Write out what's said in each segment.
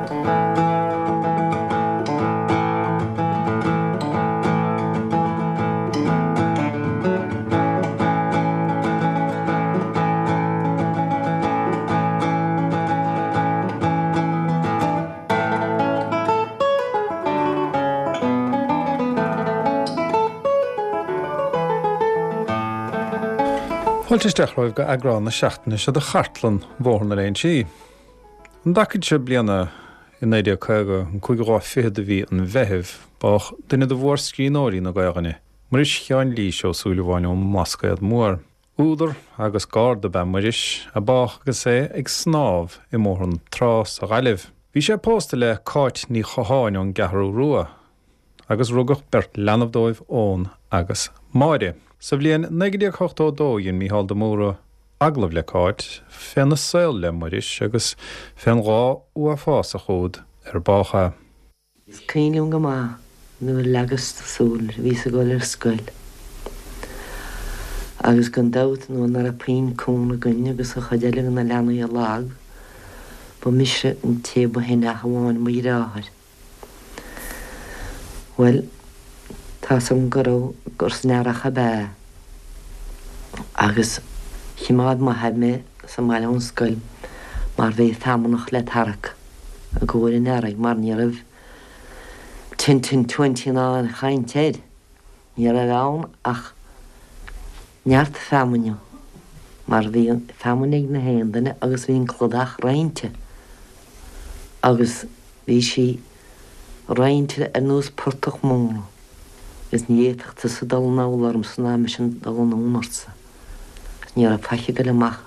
Fáilte isteach romhaibh go eagrán na seachtaine seo de Chartlann Bhóthar na Léinsí. An dtacaid seo bliana i 1950, an cúigiú lá fichead de mhí an Mheithimh, bádh duine de mhórscríbhneoirí na Gaelainne, Muiris Sheáin Lís Ó Súilleabháin ón mBlascaod Mór. Údar agus garda ab ea Muiris, a bádh agus é ag snámh i mBóthar na Trá sa Ghaillimh. Bhí sé pósta le Cáit Ní Chatháin ón gCeathrú Rua, agus rugadh beirt leanbh dóibh, Eoghan agus Máire. Sa bhliain 1982 dhein Mícheál de Mórdha agallamh le Cáit féna saol le Muiris agus fén lá uafásach úd ar bádh é. Is cuimhin liom go maith nuair a leagas súil air, bhíos ag dul ar scoil agus gan dabht nuair nach raibh puinn cúnamh againn agus an chuid eile de na leanaí lag, ba mise an té ba shine ach amháin mo dhreáthair. Bhuel, tá's agam go raibh, gur san earrach ab ea agus chimeád m'athair mé sa mbaile ón scoil mar bhí feamnach le tarrac. i gcomhair an earraigh mar ní raibh ten ten twenty ná aon chaint air. Ní raibh ann ach neart feamainne mar bhí feamainn ag na haon duine agus bhí an cladach roinnte agus bhí sí roinnte ar nós portach móna agus ní fhéadfadh tusa dul anall ormsa ná mise dul anonn ortsa. Ní raibh faic ag goil amach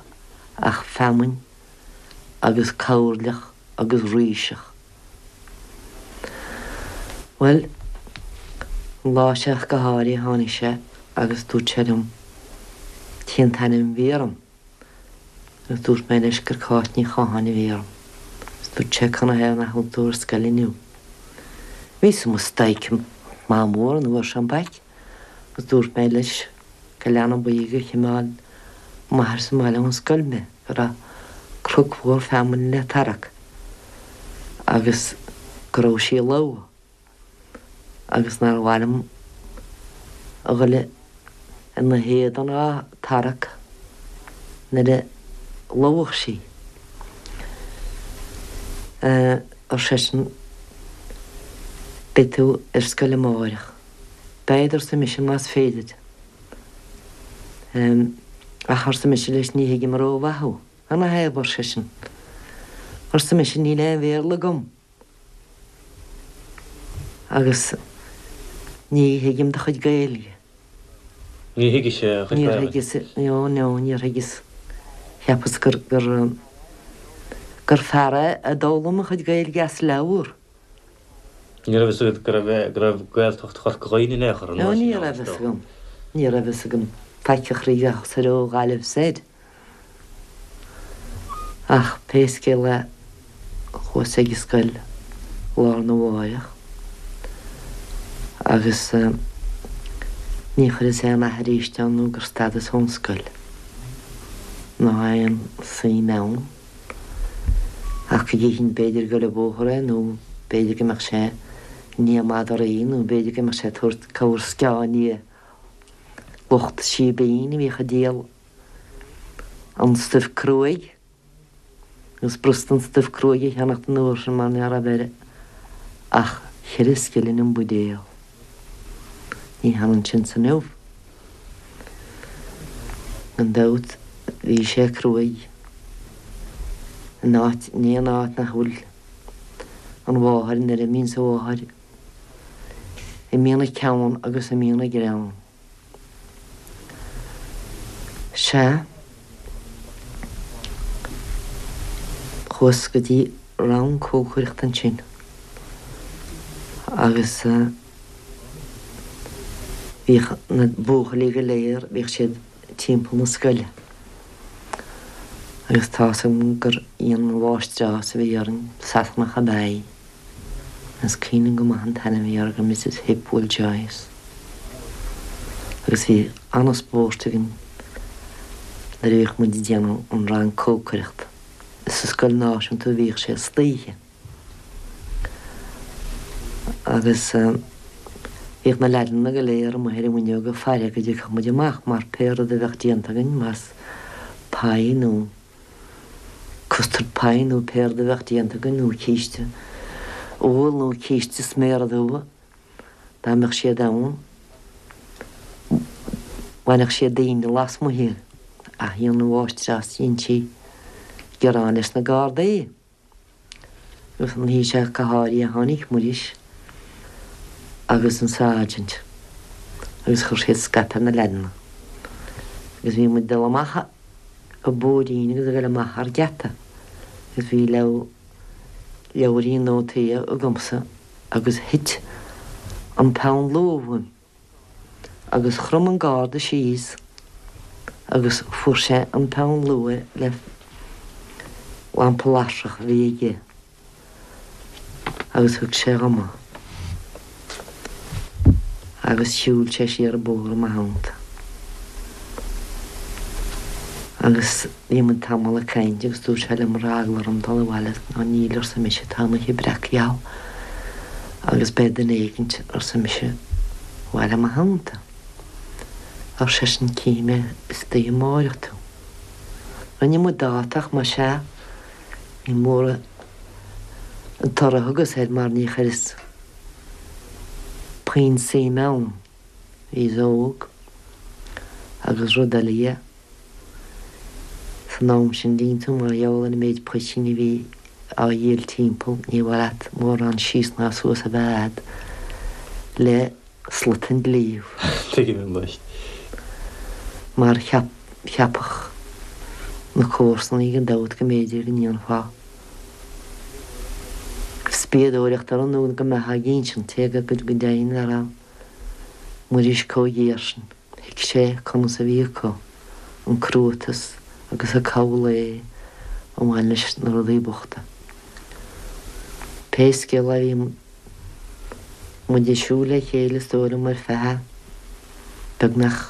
ach feamainn. agus coirleach agus ríseach. Bhuel, an lá seo ach go háirithe tháinig sé agus dúirt sé liom cén t-ainm a bhí orm agus dúirt mé leis gur Cáit Ní Chatháin a bhí orm agus dúirt sé canathaobh nach bhfuil tú ar scoil inniu. Bhíos i mo staic maith mór an uair sin back agus dúirt mé leis go leanbh buí gur chimeáil m'athair sa mbaile ón scoil mé, go raibh cnoc mhór feamainne le tarrac agus go raibh sí lobhtha agus nár mhaith liom a dhul ina héadan á tarrac nuair a lobhfadh sí. Ar seisean, Beidh tú ar scoil amáireach. Bead, arsa mise, más féidir. Ach, arsa mise leis, ní thuigim rómhaith thú. Canathaobh, ar seisean. Arsa mise, níl aon Bhéarla agam. Agus ní thuigim do chuid Gaeilge. Ní thuigis a chuid Níor thuigeas, no, no, níor thuigeas. Cheapas gur, gur, gur fear é a d'fhoghlaim a chuid Gaeilge as leabhar. Ní raibh fhios agat go raibh go raibh Gaeltacht Chorca Dhuibhne in aon chor an No, uair sin ní ann, raibh is fhios dócha. agam. Ní raibh fhios agam faic a chroí ach soir ó Ghaillimh soir. Ach pé scéal é, chuas ag an scoil lá arna mháireach agus ní chuireas aon nath arís ann nó gur stadas ón scoil ná aon suim ann. Ach go gcífinn b'fhéidir ag goil an bóthar é nó b'fhéidir go mbeadh sé i ndiaidh madraí nó b'fhéidir go mbeadh sé ag tabhairt corr sceá i ndiaidh lucht síbín a bhíodh ag díol an stuif cruaidh agus b'fhurasta an stuif cruaidh a cheannacht an uair sin mar ní raibh air ach cheithre scilling an buidéal. Ní hionann sin 's inniu. Gan dabht bhí sé cruaidh in áit, in aon áit nach bhfuil an mháthair, nuair a imíonns an mháthair, imíonn an ceann agus imíonn an greann. Sea, chuas go dtí rang cócaireachta ansin agus bhíodh na buachaillí go léir, bhíodh siad timpeall na scoile agus tá's agam gur í an mháistreás a bhí orainn, Sasanach ab ea í. Is cuimhin liom go maith an t-ainm a bhí uirthi, Mrs Hipwell Joyce. Agus bhí an-spórt againn nuair a bhíodh muid ag déanamh an rang cócaireachta. Is sa scoil náisiúnta a bhíodh sé istoíche. Agus bhíodh na leaideanna go léir amuigh ar an bhfuinneog ag faire go dtiocfadh muid amach mar pé rud a bheadh déanta againn, más pie nó custard pie nó pé rud a bheadh déanta againn nó císte úll nó císte sméara dubha, dá mbeadh siad ann, bhainfeadh siad dínn lasmuigh iad. Ach dhein an mháistreás, dhein sí gearán leis na Gardaí. Agus an oíche seo go háirithe tháinig Muiris agus an Sergeant agus chuir siad scaipe ar na leaideanna. Agus bhí muid ag dul amach an bóithrín agus ag dul amach thar geata agus bhí leabhairín nótaí agamsa agus thit an peann luaidhe uaim. Agus chrom an garda síos agus fuair sé an peann luaidhe le lampa lasrach a bhí aige agus thug sé dhom é. Agus shiúil sé siar an bóthar i mo theannta. Agus bhí muid tamall ag caint agus dúirt sé liom an raibh eagla orm dul abhaile. Ná níl, arsa mise, tá an oíche breac gheal agus beidh duine éigint, arsa mise, abhaile i mo theannta. Ar seisean, cífidh mé istoíche amáireach tú. Rinne muid dáta ach más ea, ní mór an toradh a thugas air mar ní chuireas puinn suime ann. Bhíos óg agus rud eile dhe. San am sin, dtuigeann tú, mar gheall ar an méid poitín a bhí á dhíol timpeall, ní mhaith leat mórán síos ná suas a bheith a'd le slut an dlí. Tuigim anois. Mar cheap, cheapfadh na comharsanaí gan dabht go mb'fhéidir go ndéanfá spiadóireacht orm nó go mbeifeá ag insint, cé go deimhin nach raibh Muiris chomh géar sin. Thuig sé conas a bhí acu, an cruatas agus an cabhal lae a bhain leis na rudaí bochta. Pé scéal é bhí muid ag siúl le chéile is dóigh liom ar feadh beagnach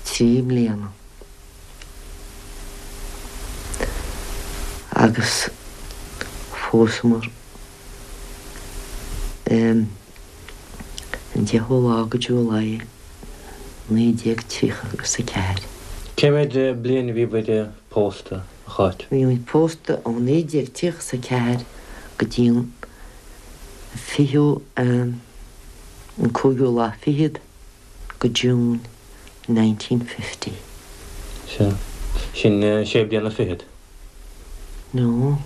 3 mbliana. Agus phósamar. An 10ú lá go July 1930 agus 4. Cé mhéad bliain a bhí bhur pósta, a Cháit? Bhí muid pósta ó 1934 go dtí an fichiú, an cúigiú lá fichead go June 1950. Sea. Sin sé bliana fichead. nó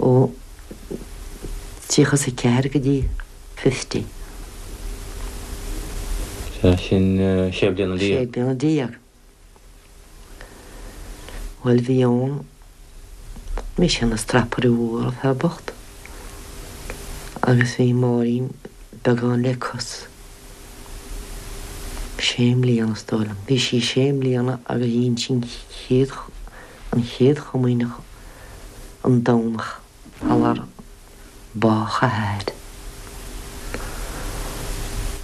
ó 34 go dtí 50. Sea, sin sé bliana déag. Sé bliana déag. Bhuel, bhí ann, bhí sé ina strapaire mhór, an fear bocht, agus bhí Máirín beagán le cos. Sé mbliana, is dóigh liom. Bhí sí sé mbliana agus dhein sí an chéad, an chéad chomaoineach an Domhnach sular bádh a hathair.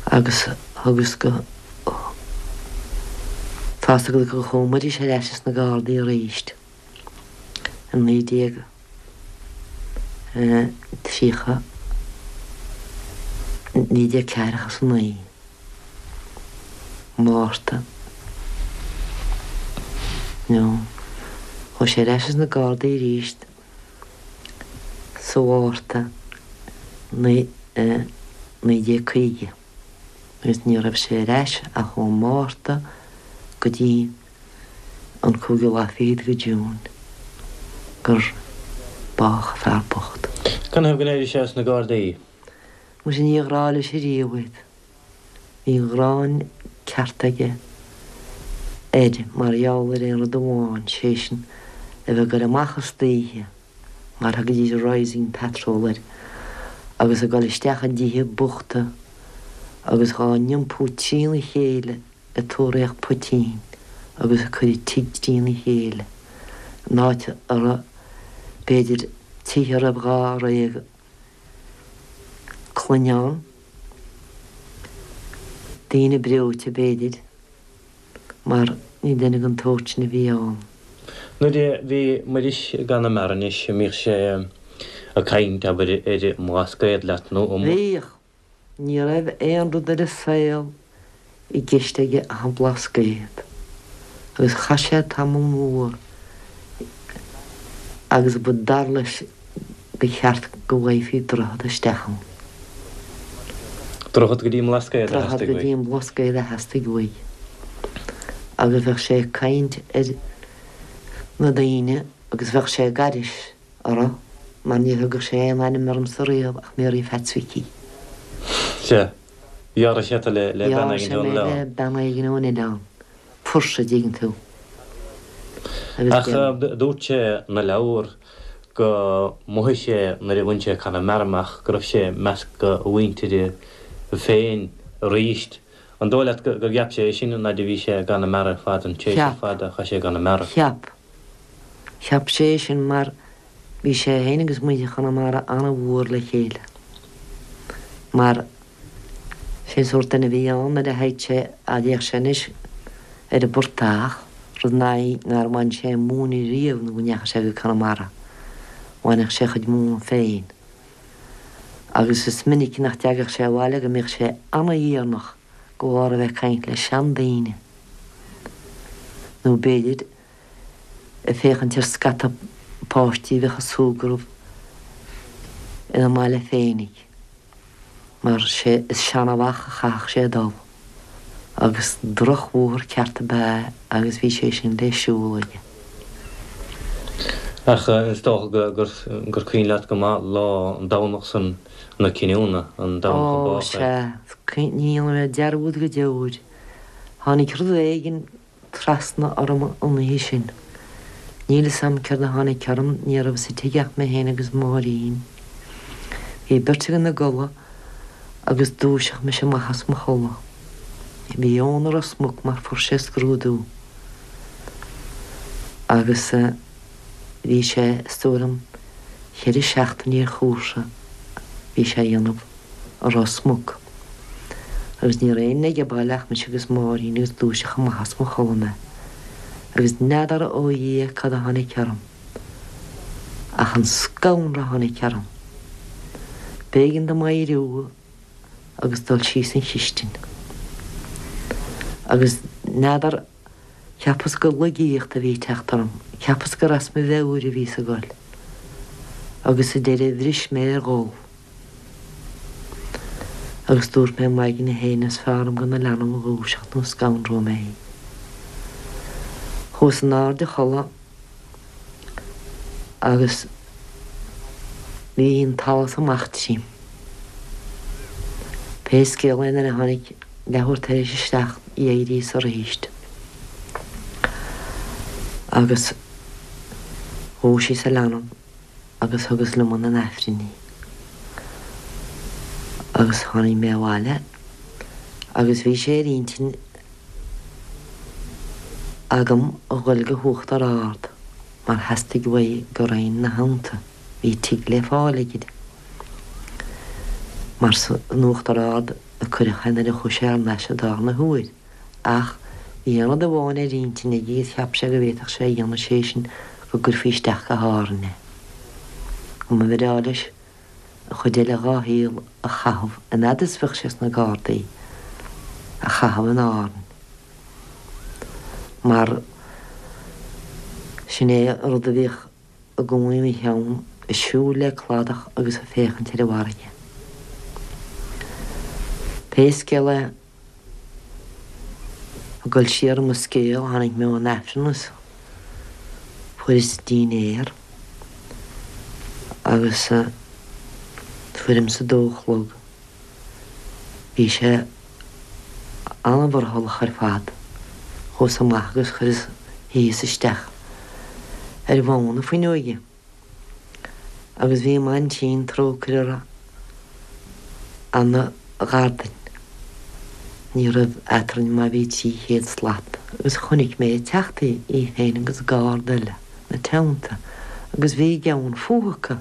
Agus thugas go, tá's agat gur chuaigh Muiris ar ais ins na Gardaí aríst i 19. 30, 1949, Márta, nó chuaigh sé ar ais ins na Gardaí arís sa Mhárta 1950 agus ní raibh sé ar ais ach ón Márta go dtí an cúigiú lá fichead go June gur bádh an fear bocht. Canathaobh go n-éirigh sé as na Gardaí? Muise níor ghrá leis ariamh iad. Bhí gráin ceart aige air mar gheall ar aon rud amháin, sé sin, a bheith ag goil amach istoíche, mar thugaidís Rising Patrol air, agus ag goil isteach i dtithe bochta agus dhá n-iompú trína chéile ag tóraíocht poitín agus ag cur an tigh trína chéile, in áit a raibh, b'fhéidir, tithe a raibh dháréag clainne ann, daoine breoite, b'fhéidir, mar ní duine den tsórt sin a bhí ann. Nuair a bhí Muiris i gConamara anois, an mbíodh sé ag caint, abair, ar an mBlascaod leat nó an. Bhíodh. Ní raibh aon rud ar an saol i gceist aige ach an Blascaod. Agus chaith sé tamall mór agus ba dar leis gur cheart go bhfaighfí droichead isteach ann. Droichead go dtí an mBlascaod a Droichead theastaigh go uaidh. dtí an mBlascaod a theastaigh uaidh. Agus bheadh sé ag caint ar na daoine agus bheadh sé ag aithris orthu mar ní thugadh sé aon ainm ormsa riamh ach Mary Pheaits Mhicí. Sea. Dhealraigh sé tú le bean Dhealraigh éigin sé ón mé le oileán. bean éigin ón oileán. Fuirse, a dtuigeann tú. Agus Ach déan. dúirt sé ina leabhar go mhothaigh sé nuair a bhain sé Conamara amach go raibh sé i measc a mhuintire féin aríst. An dóigh leat gur cheap sé é sin an fhaid a bhí sé i gConamara ar fad, an tréimhse Cheap. fada a chaith sé i gConamara? Cheap. Cheap sé é sin mar bhí sé féin agus muintir Chonamara an-mhór le chéile. Mar sé an sórt duine a bhí ann nuair a théadh sé, a d'fhéach sé anois ar an bportach, rud nár bhain sé móin riamh nó go ndeachaigh sé go Conamara. Bhainfeadh sé a chuid móna féin. Agus is minic nach dteagadh sé abhaile go mbíodh sé ana-dheireanach de bharr a bheith ag caint le seandaoine. Nó b'fhéidir ag féachaint ar scata páistí a bheadh ag súgradh ina mbaile féinig, mar sé is Seanamhach a chaithfeadh sé dul, agus drochbhóthar ceart ab ea é agus bhí sé sin le siúl aige. Ach is dócha gur cuimhin leat go maith lá an Domhnach san na cinniúna, an Domhnach a Ó, bádh é. sea, ní dhéanfaidh mé dearúd go deo air. Tháinig rud éigin trasna orm an oíche sin. Níl 'fhios a'm céard a tháinig orm, ní raibh sa tigh ach mé féin agus Máirín. Bhí beirt againn ina gcodladh agus dúiseadh mise amach as mo chodladh. Bhí Eoin i Ros Muc mar fuair sé scrúdú agus bhí sé, is dóigh liom, cheithre seachtainí ar chúrsa bhí sé a dhéanamh. i Ros Muc. Agus ní raibh éinne age baile ach mise agus Máirín agus dúiseadh amach as mo chodladh mé. Agus n'fheadar ó Dhia cad a tháinig orm. Ach an scanradh a tháinig orm. B'éigean dom éiriú agus dul síos an chistin. Agus n'fheadar, cheapas gur laigíocht a bhí ag teacht orm, cheapas gur as mo mheabhair a bhíos ag goil. Agus sa deireadh bhris mé ar ghol. Agus dúirt mé i m'aigne féin, is fearr liom gan an leanbh a dhúiseacht nó scanróidh mé í. Chuas in airde a chodladh agus bhí an t-allas amach tríom. Pé scéal é nuair a tháinig leathuair tar éis a seacht d'éiríos aríst agus dhúisíos an leanbh. agus thugas liom chun an Aifrinn í. Agus tháinig mé abhaile agus bhí sé ar intinn agam a ghoil go hUachtar Ard mar theastaigh uaidh go raghainn 'na theannta, bhí tigh le fáil aige mar san Uachtar Ard a cuireadh é nuair a chuaigh sé thar n-ais an darna huair. Ach bhí aon rud amháin ar intinn aige agus cheap sé go bhféadfadh sé a dhéanamh, sé sin go gcuirfí isteach go hÁrainn é. Go mba bhreá leis an chuid eile dhá shaol a chaitheamh, an fhad is bheadh sé sna Gardaí, a chaitheamh in Árainn. Mar sin é an rud a bhíodh i gcónaí ina cheann, ag siúl le cladach agus ag féachaint ar an bhfarraige. Pé scéal é, Ag dul siar i mo scéal, tháinig mé ón Aifreann is fuaireas dinnéar agus tuairim is a dó a chlog bhí sé an-mhurthallach ar fad. Chuas amach agus chuireas shuíos isteach ar bhonn na fuinneoige. Agus bhí m'aintín, trócaire uirthi, ana ghar duinn. Ní raibh eatrainn má bhí 300 slat. Agus chonaic mé ag teacht í, í féin agus garda eile, 'na teannta, agus bhí gean fúthu acu.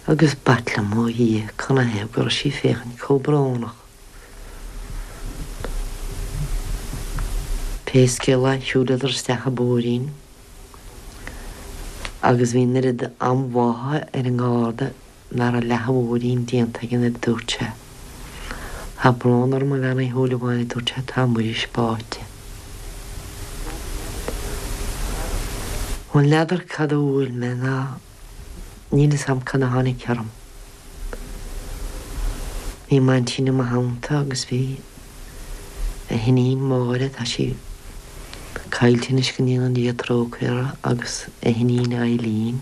Agus b'ait liom, ó Dhia, canathaobh go raibh sí ag féachaint chomh brónach. Pé scéal é, shiúileadar isteach an bóithrín. Agus bhí an oiread anbhá ar an nGarda ná raibh leath a mhóirín déanta aige nuair a dúirt sé, Tá brón orm a Bhean Uí Shúilleabháin, a dúirt sé, tá Muiris báite. Bhuel, n'fheadar cad a bhuail mé ná níl fhios a'm cad a tháinig orm. Bhí m'aintín i mo theannta agus bhí a hiníon Máire, tá sí caillte anois go ndéana Dia trócaire uirthi, agus a hiníon Eileen.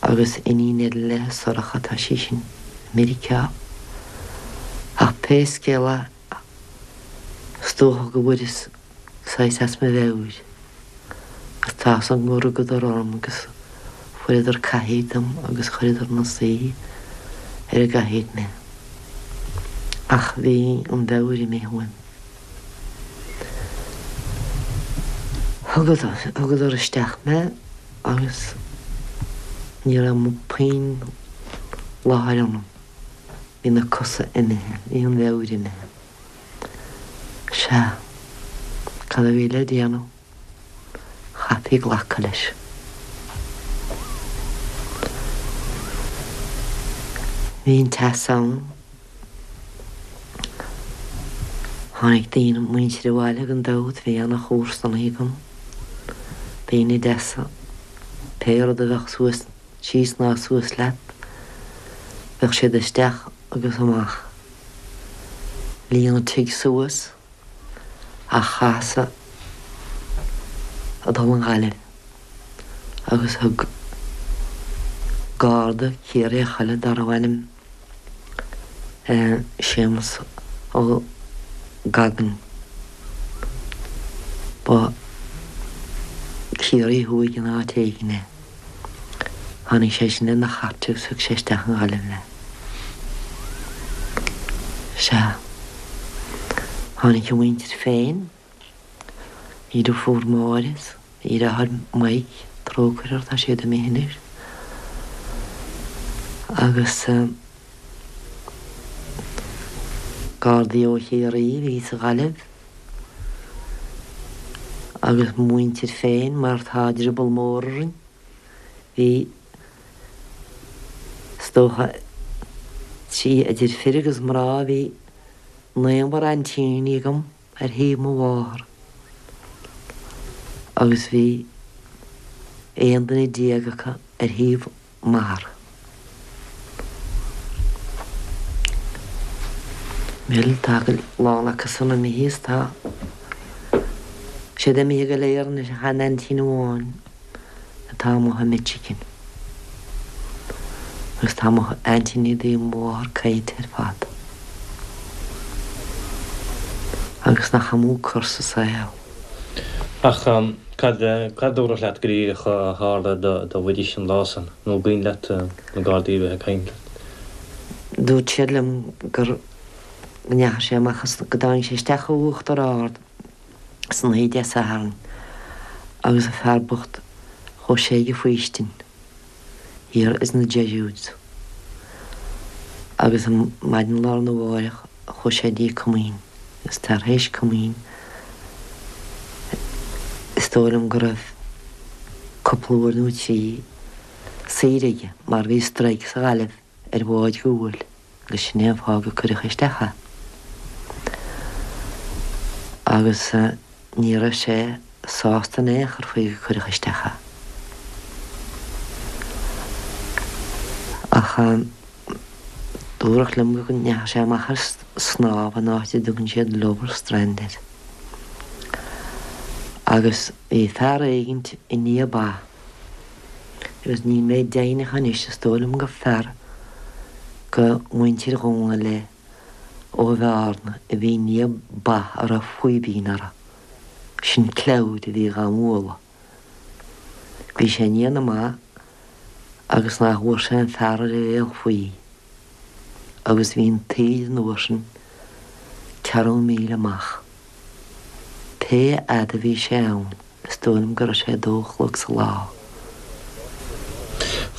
Agus iníon eile léi, Sorcha, tá sí sin i Meiriceá. Ach pé scéal é, is dócha go bhfuaireas saghas as mo mheabhair. Agus tá fhios agam gur rugadar orm agus fuaireadar cathaoir dom agus chuireadar 'na suí ar an gcathaoir mé. Ach bhí an mheabhair imithe uaim. Thugadar isteach mé agus ní raibh puinn láthair ionam. Bhí na cosa imithe, bhí an mheabhair imithe. Sea, cad a bhí le déanamh? Chaithfí glacadh leis. Bhí an teas ann. Tháinig daoine, muintir abhaile gan dabht, bhí ana chomharsanaí agam, daoine deasa, pé rud a bheadh suas, síos ná suas leat, bheadh siad isteach agus amach. Líon an tigh suas. Ach chaitheas a dhul an Ghaillimh agus thug Garda Ciarraíoch eile darbh ainm Séamus Ó Gagain, ba Ciarraí Thuaidh in áit éigin é. Tháinig sé sin lena chairt agus thug sé isteach an Ghaillimh mé. Sea. Tháinig a mhuintir féin, a dheirfiúr Máire is a dheartháir Mike, trócaire orthu, tá siad imithe anois. Agus Gardaí ó Chiarraí a bhí sa Ghaillimh agus mo mhuintir féin mar tá drioball mór orainn. Bhí, is dócha, trí, idir fir agus mná, bhí naonúr aintíní agam ar thaobh mo mháthar agus bhí 11 duine acu ar thaobh m'athar. Bhuel, tá a lán acu san imithe is tá siad imithe go léir anois ach aon aintín amháin atá amuigh i Michigan. Agus tá mo aintíní i dtaobh mo mháthar caillte ar fad. Agus nach amú cor sa saol. Ach cad, cad dúradh leat go díreach a tharla do Mhuiris an lá san? Nó an cuimhin leat na Gardaí a bheith ag caint leat? Dúirt siad liom gur, go ndeachaigh sé amach as, go dtáinig sé isteach ó Uachtar Ard san oíche Dé Sathairn agus an fear bocht, chuaigh sé ag an faoistin thiar ins na Jesuits agus maidin lá arna mháireach chuaigh sé dtí comaoin agus tar éis comaoin is dóigh liom go raibh cúpla uair nó trí saor aige mar bhí strike sa Ghaillimh ar bháid ghuail agus sin é an fáth gur cuireadh isteach é. Agus ní raibh sé sásta in aon chor faoi gur cuireadh isteach é. Ach dúradh liom go ndeachaigh sé amach ar snámh in áit a dtugann siad Lover's Strand air. Agus bhí fear éigint i ndiaidh ba. Agus níl mé deimhneach anois, is dóigh liom gur fear go muintir Dhónaill é ó Bhearna a bhí i ndiaidh ba a raibh faoibín orthu. Sin clabhair a bhí dhá mbualadh. Bhí sé i ndiaidh na mba agus nach bhfuair sé an fear ar a bhéal faoi agus bhí an taoide an uair sin ceathrú míle amach. Pé fhad a bhí sé ann. Is dóigh liom go raibh sé a dó a chlog sa lá.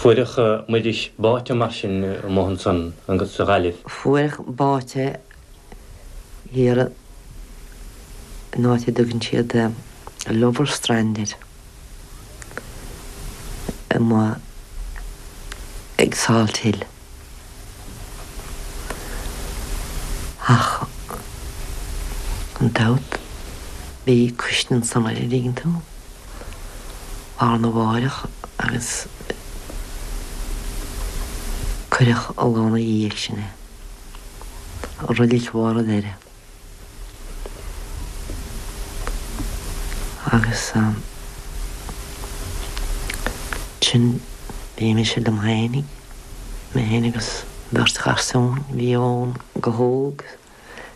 Fuaireadh Muiris báite mar sin amuigh ansan agus sa Ghaillimh. Fuaireadh báite thiar in áit a dtugann siad Lover's Strand air. Amuigh ag Salt Hill. Ach gan dabht bhí cuisne ansan air, an dtuigeann tú, lá arna mháireach agus cuireadh an lá 'na dhiaidh sin é, i roilig Bharr an Doire. Agus ansin bhí mise liom fhéinig, mé fhéin agus beirt gharsún, bhí Eoin go hóg,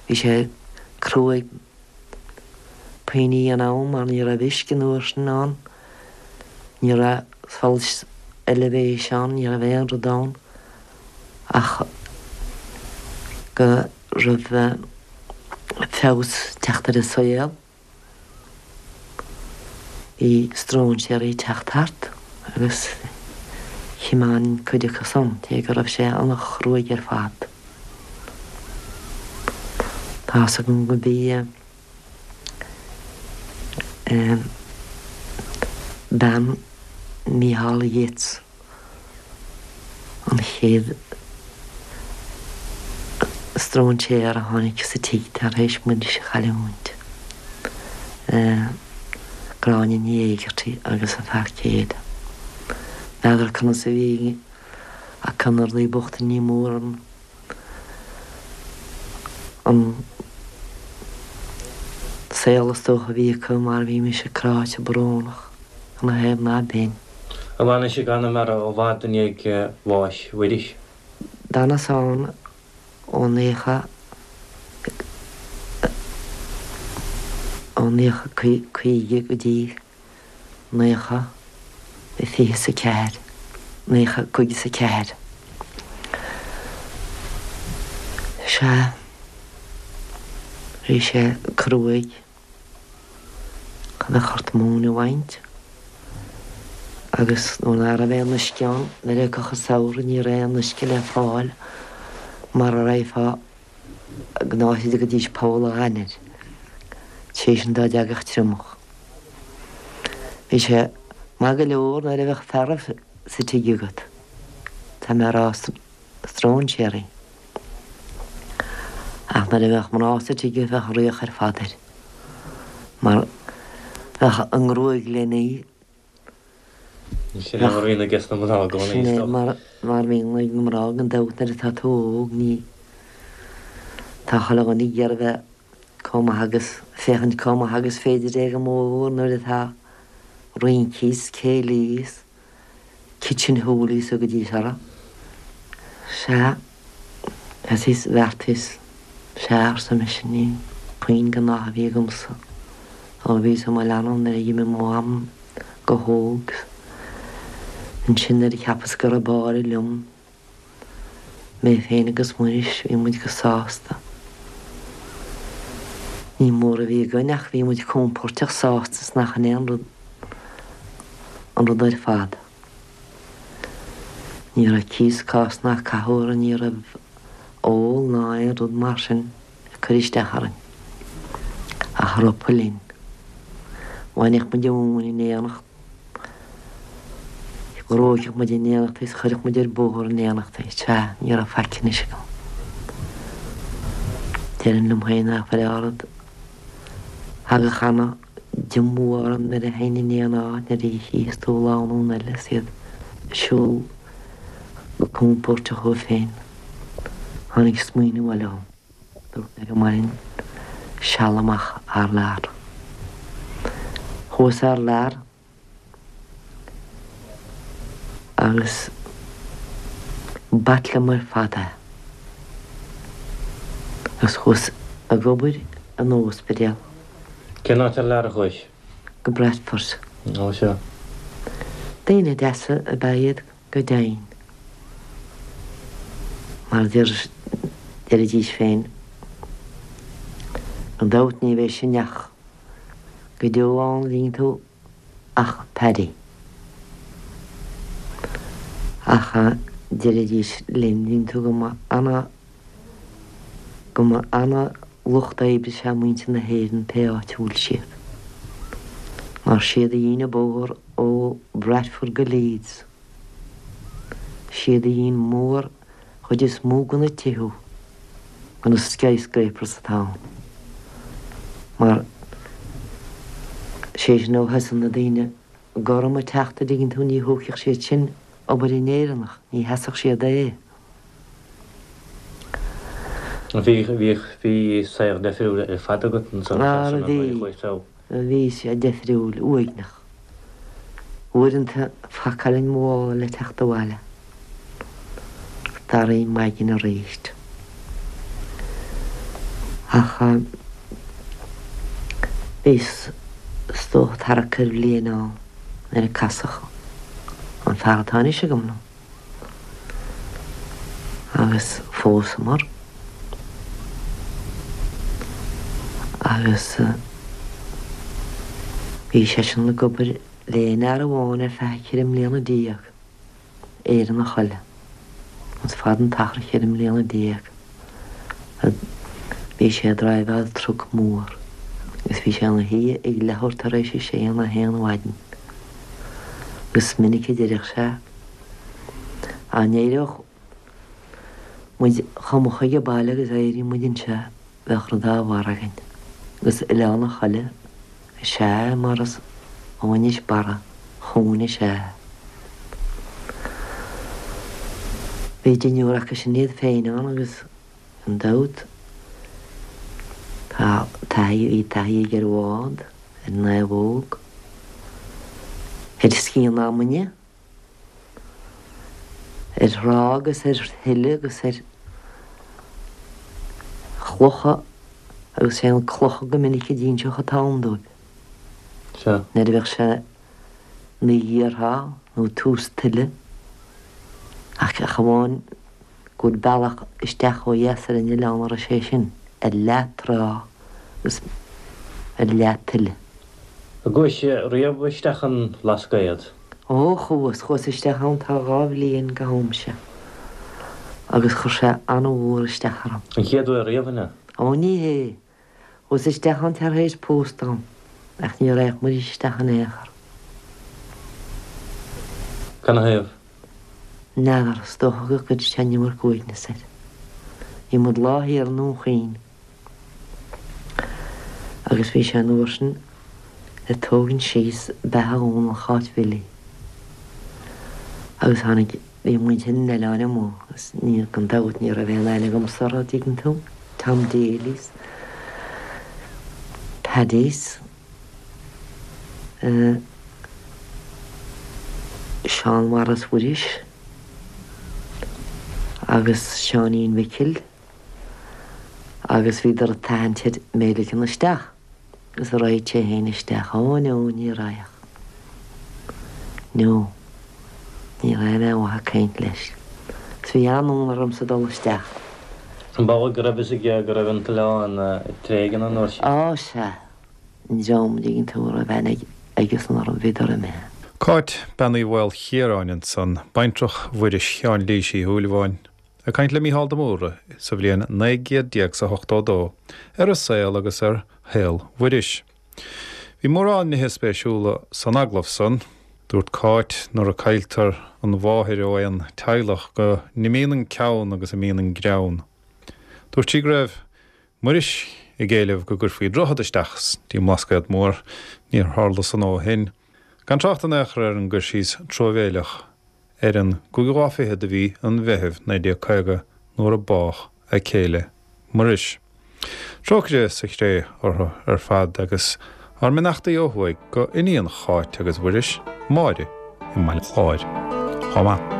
bhí sé cruaidh puinní in am mar ní raibh uisce an uair sin ann, ní raibh solas oilibhéis ann, ní raibh aon rud ann ach go raibh feabhas ag teacht ar an saol. Bhí stróinséirí ag teacht thart agus thiomáin cuid acu san, cé go raibh sé an-chruaidh ar fad. Tá's agam go bhí bean Mícheál Yeats, an chéad stróinséir a tháinig sa tigh tar éis Muiris a chailliúint, Gráinne Ní Éigeartaigh agus a fear céile. N'fheadar conas a bhí acu na rudaí bochta, ní mór an an saol is dócha a bhí acu mar bhí mise cráite brónach ina thaobh ná b'in. Ar fhanais i gConamara i bhfad i ndiaidh bháis Mhuiris? D'fhanas ann ó naocha, ó 1950 go dtí naocha fiche 's a ceathair, naocha cúig is a ceathair. Sea, bhí sé cruaidh. Bheadh ort móin a bhaint agus nuair ná raibh aon uisce ann, nuair a thiocfadh an samhradh ní raibh aon uisce le fáil mara raghfá go n-áit a dtugaidís Poll a' Ghainir, sé sin dá dtagadh triomach. Bhí sé maith go leor nuair a bheadh fearaibh sa tigh agat, tá mé a rá stróinséirí. Ach nuair a bheadh mná sa tigh bheadh fraoch ar fad air, mar bheadh a ngruaig lena. Sin é mar a bhíonn ages na mná i gcónaí, Sin é mar a bhíonn ag na mná gan dabht nuair atá tú óg ní tá chuile dhuine ag iarraidh bheith chomh maith agus féachaint chomh maith agus féidir é go mór nuair atá rincí 's céilí 's Kitchen hoolies a thugaidís orthu. Sea, is bheartaíos, sea, arsa mise, ní puinn den ádh a bhí agamsa ó bhíos i mo leanbh nuair a d'imigh mo mham go hóg. Ansin nuair a cheapas go raibh báire liom, Mé féin agus Muiris, bhí muid go sásta. Ní mór a bhí againn ach bhí muid compóirteach sásta is nach in é an rud an rud ar fad. Ní raibh cíos cás ná cathú orainn, ní raibh ól ná aon rud mar sin ag cur isteach orainn. Ach ropadh linn. Bhainfeadh muid an mhóin in éineacht. Ghnóthódh muid in éineacht is chuirfeadh muid ar bóthar in éineacht é. Sea, ní raibh faic anois agam. Déarfainn liom féin nach bhfuil ard. Thagadh ana diomú orm nuair a théinn in aon áit, nuair a chífeas tú lánúin eile is iad ag siúl go compóirteach dhóibh féin. Tháinig smaoineamh eile dhom. Dúirt mé go mbainfinn seal amach thar lear. Chuas thar lear agus b'ait liom ar fad é. Agus chuas ag obair in ospidéal. Cén áit thar lear a chuais? Go Bradford. Ó sea. Daoine deasa ab ea iad. Go deimhin, mar a deiridís féin, gan dabht ní bheidh sin ach go deo ann, an dtuigeann tú, ach Paddy. Ach deiridís linn, an dtuigeann tú, go mba ana, go mba ana lucht oibre is ea muintir na hÉireann pé áit a bhfuil siad. Mar siad a dhein an bóthar ó Bradford go Leeds. Siad a dhein mór chuid is mó de na tithe, de na skyscrapers atá ann. Mar sé sin ó thosaigh na daoine gorma ag teacht a dtuigeann tú ní thógfadh siad sin obair an Éireannach, ní sheasfadh siad é. Bhí, bhí, bhí saol deifriúil ar fad agat ansan Ara bhí, bhí sé deifriúil, uaigneach. Uaireanta phacáilinn mo mhála le teacht abhaile. Daraí maidin aríst. Ach bhíos is dócha tarrac ar bhliain ann nuair a casadh an fear atá anois agam liom. Agus phósamar. Agus bhí seisean ag obair le aon fhear amháin ar feadh cheithre mbliana déag, Éireannach eile. Is fada an t-achar cheithre mbliana déag. Bhí sé ag driveáil truc mór agus bhí sé ina shuí ag leathuair tar éis a sé nó a haon mhaidin. Agus is minic a deireadh sé, Dá n-éireodh muid chomh moch age baile agus a éiríonn muid anseo, bheadh rud dá bharr againn. Agus Oileán an Choille is ea é mar is ó Inis Barra chugainn is ea é. Bhí deichniúr acu sin iad féin ann agus gan dabht tá taithí, bhí taithí aige ar bhád, ar naomhóg, ar sciath na abhainne, ar thrá agus ar thuile agus ar chlocha agus sé an clocha go minic a d'inseodh an t-am dóibh. Sea. Nuair a bheadh sé ina ghéarthrá nó tús tuile ach ach amháin go bhfuil bealach isteach ó dheas ar an oileán a raibh sé sin ar leath trá agus ar leath tuile. An gcuais riamh isteach an Bhlascaod? Ó, chuas, chuas isteach ann tá 2 bhliain go ham seo agus chuir sé an-mhór isteach orm. An chéad uair riamh, an ea? Ó, ní hé. Chuas isteach ann tar éis pósta dom ach ní raghadh muid isteach in aon chor. Canathaobh? N'fheadar, is dócha go gcuireadh sé an iomarca uaigneas air. Bhí muid lá thiar i nDún Chaoin agus bhí sé an uair sin ag tógaint síos beatha Dhónaill Cháit Bhilí agus tháinig Bhí muintir an oileáin amuigh agus ní, gan dabht, ní raibh aon aithne agamsa orthu, an dtuigeann tú, Tom Daly's, Paddy's, eh, Seán Mhaurice Mhuiris agus Seáinín Mhicil agus bhíodar ag tathant air mé a ligean isteach. Agus an raghadh sé féin isteach. Ó no, ní raghadh. No. Ní raibh mé amuigh ag caint leis. Agus bhí an-fhonn ormsa dul isteach. An b'amhlaidh go raibh fhios aige go raibh an t-oileán tréigthe an uair sin? Á, sea. An dream, an dtuigeann tú, a raibh aithne aigesan orm, bhíodar imithe. Cáit, Bean Uí Mhaolchiaráin ansan, baintreach Mhuiris Sheáin Lís Uí Shúilleabháin. Ag caint le Mícheál de Mórdha sa bhliain 19 chéad 's a 82 ar a saol agus ar shaol Mhuiris. Bhí mórán nithe spéisiúla san agallamh san. Dúirt Cáit nuair a cailltear an mháthair ó aon teaghlach go n-imíonn an ceann agus imíonn an greann. Dúirt sí go raibh Muiris ag éileamh go gcuirfí droichead isteach dtí an mBlascaod Mór. Níor tharla san ó shin. Gan trácht in aon chor ar an gcur síos truamhéileach ar an gcúigiú lá fichead de mhí an Mheithimh 1950 nuair a bádh a céile Muiris. Trócaire sa chré orthu ar fad agus ár mbeannachtaí ó thuaidh go iníon Cháit agus Mhuiris, Máire, i mBaile Chláir chomh maith.